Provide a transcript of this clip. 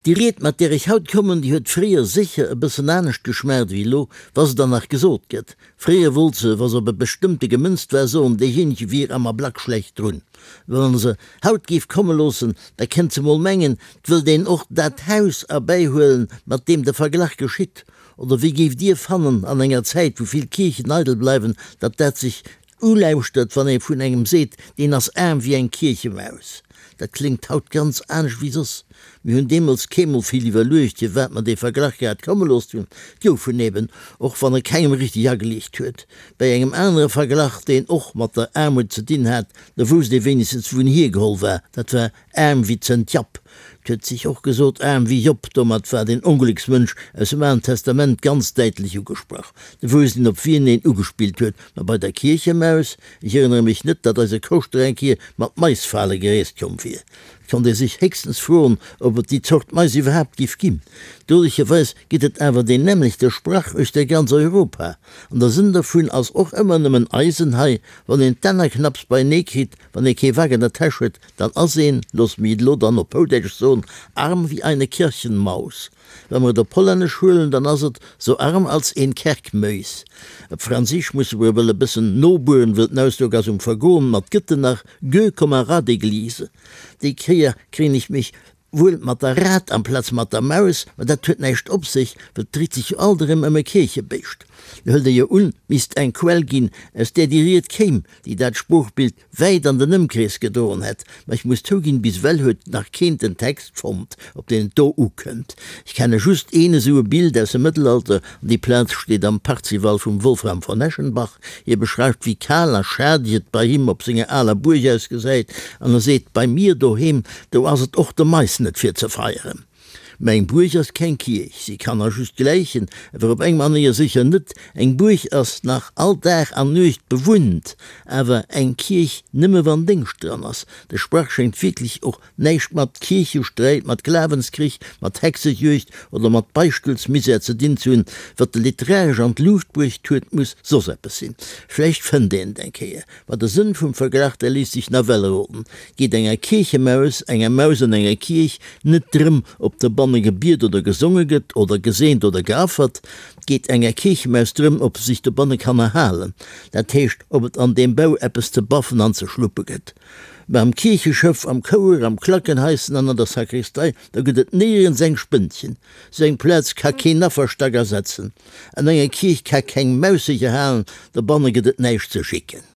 Déi Ried, mat där ech haut kommen, déi huet fréier sécher e bëssen anescht geschmaacht ewéi elo, wa se dann nach gesot gëtt. Fréier wollt se, wa se op e bestëmmte gemënzt war, soen, deejéinege wier am Ablack schlecht drun. Wann se haut géif komme loossen, da kennt se mol mengen, 't wëllt een och dat Haus erbäihuelen, mat deem de Verglach geschitt. Oder wéi géift Dir fannen, an enger Zäit, wou vill Kierchen eidel bleiwen, datt dat sech Ulauschtert, wann ee vun engem seet, deen ass aarm wéi eng Kierchemaus. Dat kléngt haut ganz anescht wéi soss. Mir hunn deemools keemol vill iwwerluecht, firwat mer dee Verglach grad komme loosst hunn. Et gouf en eben, och wann e kengem richteg ageliicht huet. Bäi engem anere Verglach, deen och mat der Aarmut ze dinn hat, do wousst ee wéinegstens, wou en hiergeholl war, dat war Aarm wéi Zënt Japp. 't huet sech och gesot, aarm wéi Job. Domat war den Onglécksmënsch aus dem Alen Testament ganz däitlech ugesprach. De wousst een, op wien een ugespillt huet. Ma bei der Kierchemaus? Ech erënnere mech net, datt eise Koschter eng Kier mat Maisfale gereest komm wier. Et konnt ee sech héchstens froen, ob et déi Zort Mais iwwerhaapt giff ginn. Dolecherweis gëtt et awer deen nämmlechte Sprach uechter ganz Europa. An der Sënn dervun ass och ëmmer nëmmen eisen hei, wann een d'Enner knapps beienee kritt, wann ee kee Wak an der Täsch huet, Dann ass een, looss mich et elo dann op Houdäitsch soen, arm wie eine Kirchenmaus. Wa mer et op Hollännesch huelen, dann ass et so arm als een Kerkmuis. Op Franséisch musse mer ewell e bëssen nobueren, wëll den Ausdrock ass um Vergoen, ma 't gëtt en nach, gueux comme un rat d'église. Déi Kéier kréien ech mech wuel mat der Rat amplaz mat der Maus, ma dat huet näischt op sech, well 't dréit sech jo alt erëm ëm e Kierchebéischt. Do hëlt ee jo un, 't misst eng Quell ginn, aus där déi Ried kéim, déi dat Sproochbild wäit an den Ëmkrees gedroen hätt, ma ech muss zouginn, bis ewell huet nach keen den Text fonnt, op deen et do ukënnt. Ech kenne just een esou e Bild aus dem Mëttelalter, an déi Plaz steet am Parzival vum Wolfram von Eschenbach. Hie beschreift, wéi kal a schadeg et bei him op senger aler Buerg ausgesäit, an e seet, Bei mir doheem, do ass et och de Mais net fir ze feieren. Mä eng Buerg ass keng Kierch, si kann a just gläichen, awer op eng Manéier sécher net. Eng Buerg ass nach all Dag an Nuecht bewunnt, awer eng Kierch nëmme wann Déngscht dran ass. De Sprach schéngt wierklech och näischt mat Kierchesträit, mat Glawenskrich, mat Hexejuegd oder mat Beichtelsmisär ze dinn ze hunn. Wat e literaresch an d'Luucht bruecht huet, muss soss eppes sinn. Vläicht fënnt een et eng Kéier. Ma de Sënn vum Verglach, dee léisst sech nawell roden. Geet enger Kierchemaus, enger Maus an enger Kierch, net drëm, ob dobanne gebiet oder gesonge gëtt, oder geseent oder geaffert. Et geet enger Kierchemaus drëm, ob se sech dobanne kann erhalen, dat heescht, ob et an deem Bau eppes ze baffen an ze schluppe gëtt. Mä am Kiercheschëff, am Chouer, am Klackenhaischen an an der Sakristei, do gëtt et néierens eng Spënnchen. Sou eng Plaz ka keen Afferstack ersetzen. An enger Kierch ka keng Maus sech erhalen, dobanne gëtt et näischt ze schicken.